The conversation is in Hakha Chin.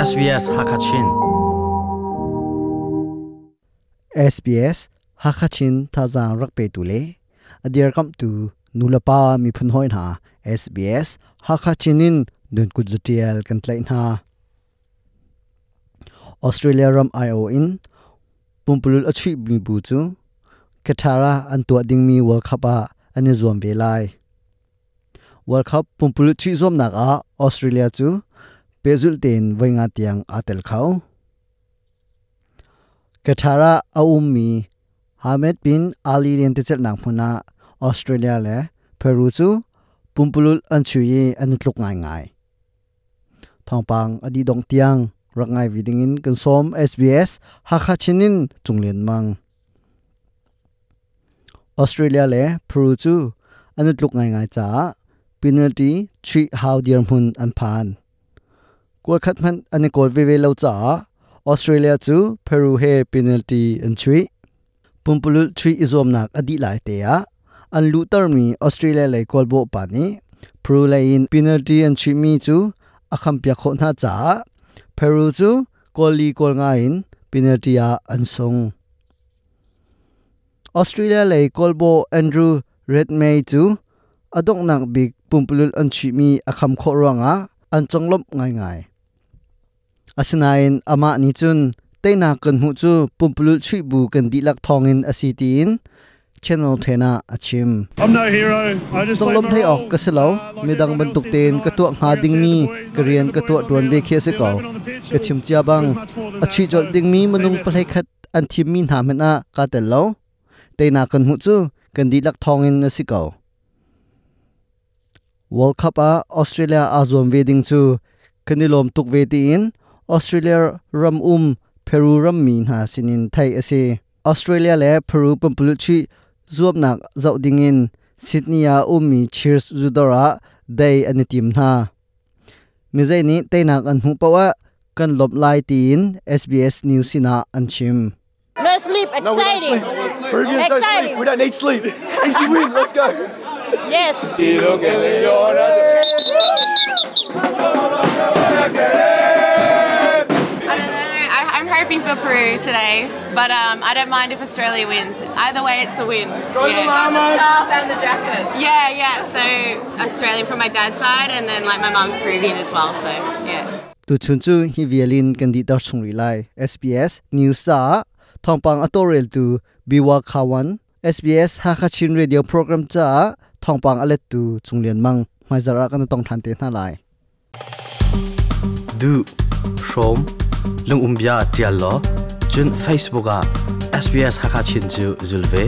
SBS Hakachin. SBS Hakachin thazaang rak petu le a dirkamhtu nulepa miphun hawi hna SBS Hakachin in nunkut zatial kan tlaih hna. Australia ram aiawh in pumpululh a chuihmi bu cu Qatar ah an tuah dingmi World Cup ah an i zuam ve lai. World Cup pumpululh chuih zuamnak ah Australia cu pehzulh tein voi nga tiang aa tel kho. Qatar ah a ummi Ahmed bin Ali lentecelhnak hmun ah Australia le Peru cu pumpululh an chuih i an i tluk ngaingai. Thawngpang a dih dongh tiang rak ngai ve dingin kan sawm SBS Hakha Chin in Cunglian Mang. Australia le Peru cu an i tluk ngaingai caah penalty chuih hau dirhmun an phan. Kual khat hmanh an i kawl veve lo caah Australia cu Peru he penalty an chuih. Pumpululh chuih i zuamnak a dih lai te ah an luhtermi Australia lei kawlbawh pa nih Peru lei in penalty an chuihmi cu a khampiak khawh hna caah Peru cu kawl li kawl nga in penalty ah an sung. Australia lei kawlbawh Andrew Redmayne cu a donghnak bik pumpululh an chuihmi a kham khawh ruangah an conglawmh ngaingai. Asinain amah nih cun teinak kan hmuh cu pumpululh chuih bu kan dihlak thawngin a si tiin Channel 10 ah a chim. Conglawmh hlei awk ka si lo. Midang bantuk tein ka tuah hnga dingmi ka rian ka tuah ṭuan ve khi a si ko. Ka chim cia bang, a chuih colh dingmi minung pahlei khat an thimmi hna hmanh ah kaa tel lo. Teinak kan hmuh cu kan dihlak thawngin a si ko. World Cup ah Australia aa zuam ve ding cu kan i lawm tuk ve tiin Australia ram um Peru rammi hna sinin theih a si. Australia le Peru pumpululh chuih zuamnak zoh dingin Sydney ah ummi Cheers zudawr ah dei an i tim hna. Mizei nih teinak an hmuh paoh ah kan lawmh lai tiin SBS News sinah an chim. No sleep, No, we don't exciting. sleep. Peruvians don't Exciting. sleep. We don't need sleep. Easy win. Let's go. Yes. I don't know. I'm hoping for Peru today, but I don't mind if Australia wins. Either way, it's a win. Go the yeah. Llamas. scarf and the jackets. Yeah, yeah. So Australian from my dad's side, and then like my mum's Peruvian as well. So yeah. Tuchun cu hi vialin kan dihter chung rih lai. SBS News caah thawngpang a tawlreltu Biwa Khawan, SBS Hakha Chin Radio program caah thawngpang a lettu Cung Lian Mang. Hmaizarh ah kan i tong ṭhan te hna lai. Duh, hrawm, lungumbia ṭial law, cun Facebook ah SBS Hakha Chin cu zul ve.